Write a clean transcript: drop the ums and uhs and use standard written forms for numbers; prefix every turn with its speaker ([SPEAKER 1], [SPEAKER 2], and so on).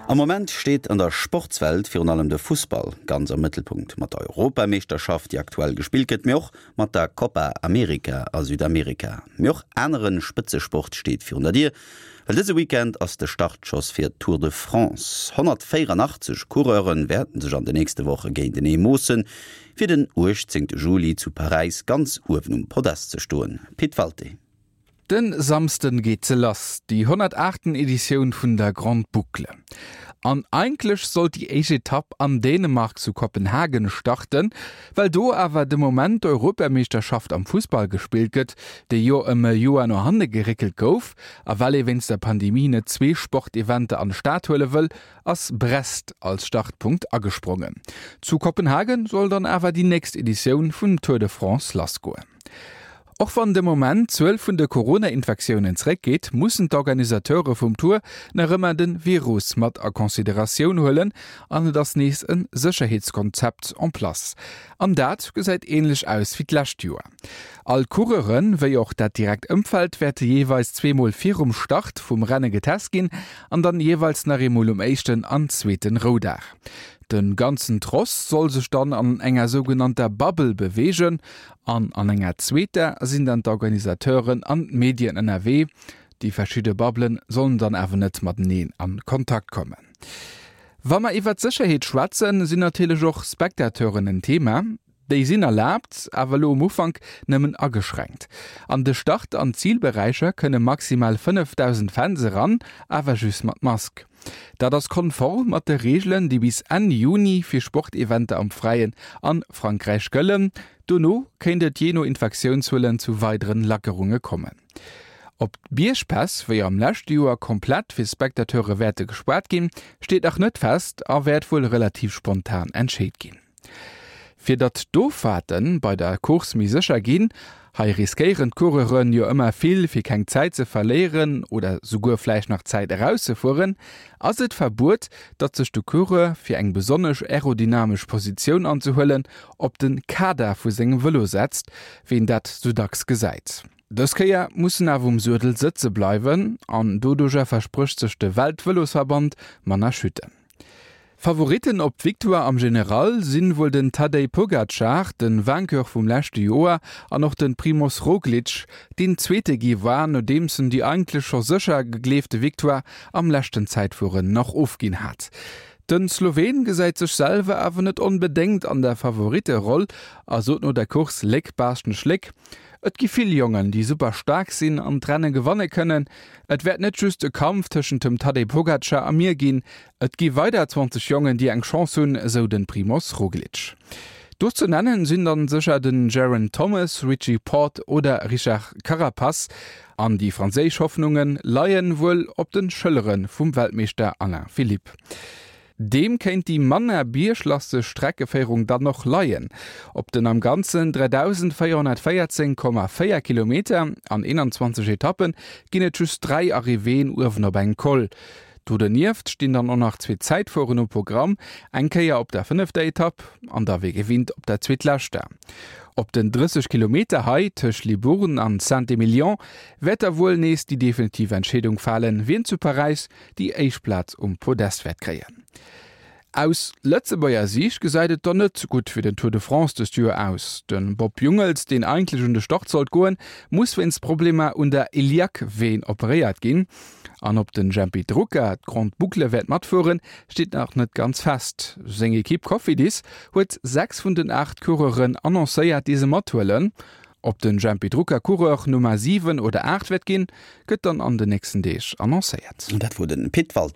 [SPEAKER 1] Am Moment steet an der Sportswelt virun allem de Fussball ganz am Mëttelpunkt. Mat der Europameeschterschaft, déi aktuell gespillt gëtt, mee och mat der Copa America a Südamerika. Mee och anere Spëtzesport steet virun der Dier, well dëse Weekend ass de Startschoss fir d'Tour de France. 184 Coureure wäerten sech an de nächste Woche géintenee moossen, fir den 18 Juli zu Paräis ganz uewen um Podest ze stoen. Pit Walté.
[SPEAKER 2] Den Samsden geet se lass, déi 108. Editioun vun der Grande Boucle. An eigentlech sollt déi éischt Etapp an Dänemark zu Kopenhagen starten, well do awer de Moment d'Europameeschterschaft am Fussball gespillt gëtt, déi jo ëm e Joer no hanne geréckelt gouf, a well ee wéinst der Pandemie net zwee Sporteventer an d'Stad huele wëll, ass Brest als Startpunkt agesprongen. Zu Kopenhagen soll dann awer déi nächst Editioun vum Tour de France lassgoen. Och wann de Moment d'Zuel vun de Corona-Infektiounen zeréckgeet, mussen d'Organisateure vum Tour nach ëmmer de Virus mat a Consideratioun huelen an et ass nees e Sécherheetskonzept en place. An dat gesäit änlech aus wéi d'lescht Joer. All d'Coureure wéi och dat direkt Ëmfeld wäerte jeeweils zweemol virum Start vum Renne getest ginn an dann jeeweils nach eemol um éischten an zweeten Roudag. De ganzen Tross soll sech dann an enger sougenannter Bubble beweegen An an enger zweeter sinn dann d'Organisateuren an d'Medien ënnerwee. Déi verschidde Bubblen sollen dann awer net mateneen an Kontakt kommen. Wa mer iwwert d'Sécherheet schwätzen, sinn natierlech och Spectateuren en Thema. Déi sinn erlaabt, awer elo um Ufank nëmmen ageschränkt. An de Start an Zilberäicher kënne maximal 5.000 Fans eran, awer just mat Mask. Dat ass konform mat de Reegelen, déi bis Enn Juni fir Sporteventer am Fräien an Frankräich gëllen. Dono kéint et jee no Infektiounszuelen zu weideren Lackerunge kommen. Ob d'Biergpäss wéi am leschte Joer komplett fir Spectateure wäerte gespaart ginn, steet nach net fest a wäert wuel relativ spontan entscheet ginn. Fir datt d'Offahrte bei der Course méi sécher ginn, hei riskéieren d'Coureuren jo ëmmer vill fir keng Zäit ze verléieren oder souguer vläicht nach Zäit erauszefueren, ass et verbuet, datt sech de Coureur, fir eng besonnesch aerodynamesch Positioun anzehuelen, op de Kader vu sengem Vëlo setzt, wéi een dat sou dacks gesäit. Dës Kéier muss en awer um Suedel sëtze bleiwen an doduercher versprécht sech de Weltvëlosverband manner Chutten. Favoritten op d'Victoire am General sinn wuel den Tadej Pogacar, de Vainqueur vum leschte Joer, an och de Primoz Roglic, deen Zweete gi war, nodeems en déi eigentlech scho sécher gegleefte Victoire am leschten Zäitfueren nach ofginn hat. Den Sloween gesäit sech selwer awer net onbedéngt an der Favoritteroll a sot no der Course, Léck, Baaschtnech, Léck. Et gi vill Jongen, déi super staark sinn an d'Renne gewanne kënnen. Et wäert net just e Kampf tëschent dem Tadej Pogacar a mir ginn. Et gi weider 20 Jongen, déi eng Chance hunn, esou de Primoz Roglic. Do ze nennen sinn dann sécher den Geraint Thomas, Richie Porte oder Richard Carapaz. An déi franséisch Hoffnunge leien wuel op de Schëllere vum Weltmeeschter Alain Philippe. Deem kéint déi manner bierglasteg Streckeféierung dann och leien. Op den am Ganzen 3.414,4 Kilometer an 21 Etappe ginn et just 3 Arrivéeën uewen op engem Col. Do donieft stinn dann och nach zwee Zäitfueren um Programm, eng Kéier op der fënnefter Etapp an da wéi gewinnt op der zweetleschter. Op den 30 Kilometer hei tëscht Libourne an Saint-Emilion wäert da wuel nees déi definitiv Entscheedung falen, wien zu Paräis déi éischt Plaz um Podest wäert kréien. Aus Lëtzebuerger Siicht gesäit et dann net gutt fir den Tour de France dëst Joer aus. De Bob Jungels, deen eigentlech un de Start sollt goen, muss wéinst Problemer un der Iliac-Veen operéiert ginn. An ob den Jempy Drucker d'Grande Boucle wäert matfueren, steet nach net ganz fest. Seng Ekipp Cofidis huet 6 vun den 8 Coureuren annoncéiert, déi se mathuelen. Ob den Jempy Drucker Coureur Nummer 7 oder 8 wäert ginn, gëtt dann an den nächsten Deeg annoncéiert.
[SPEAKER 1] Dat wor den Pit Walté.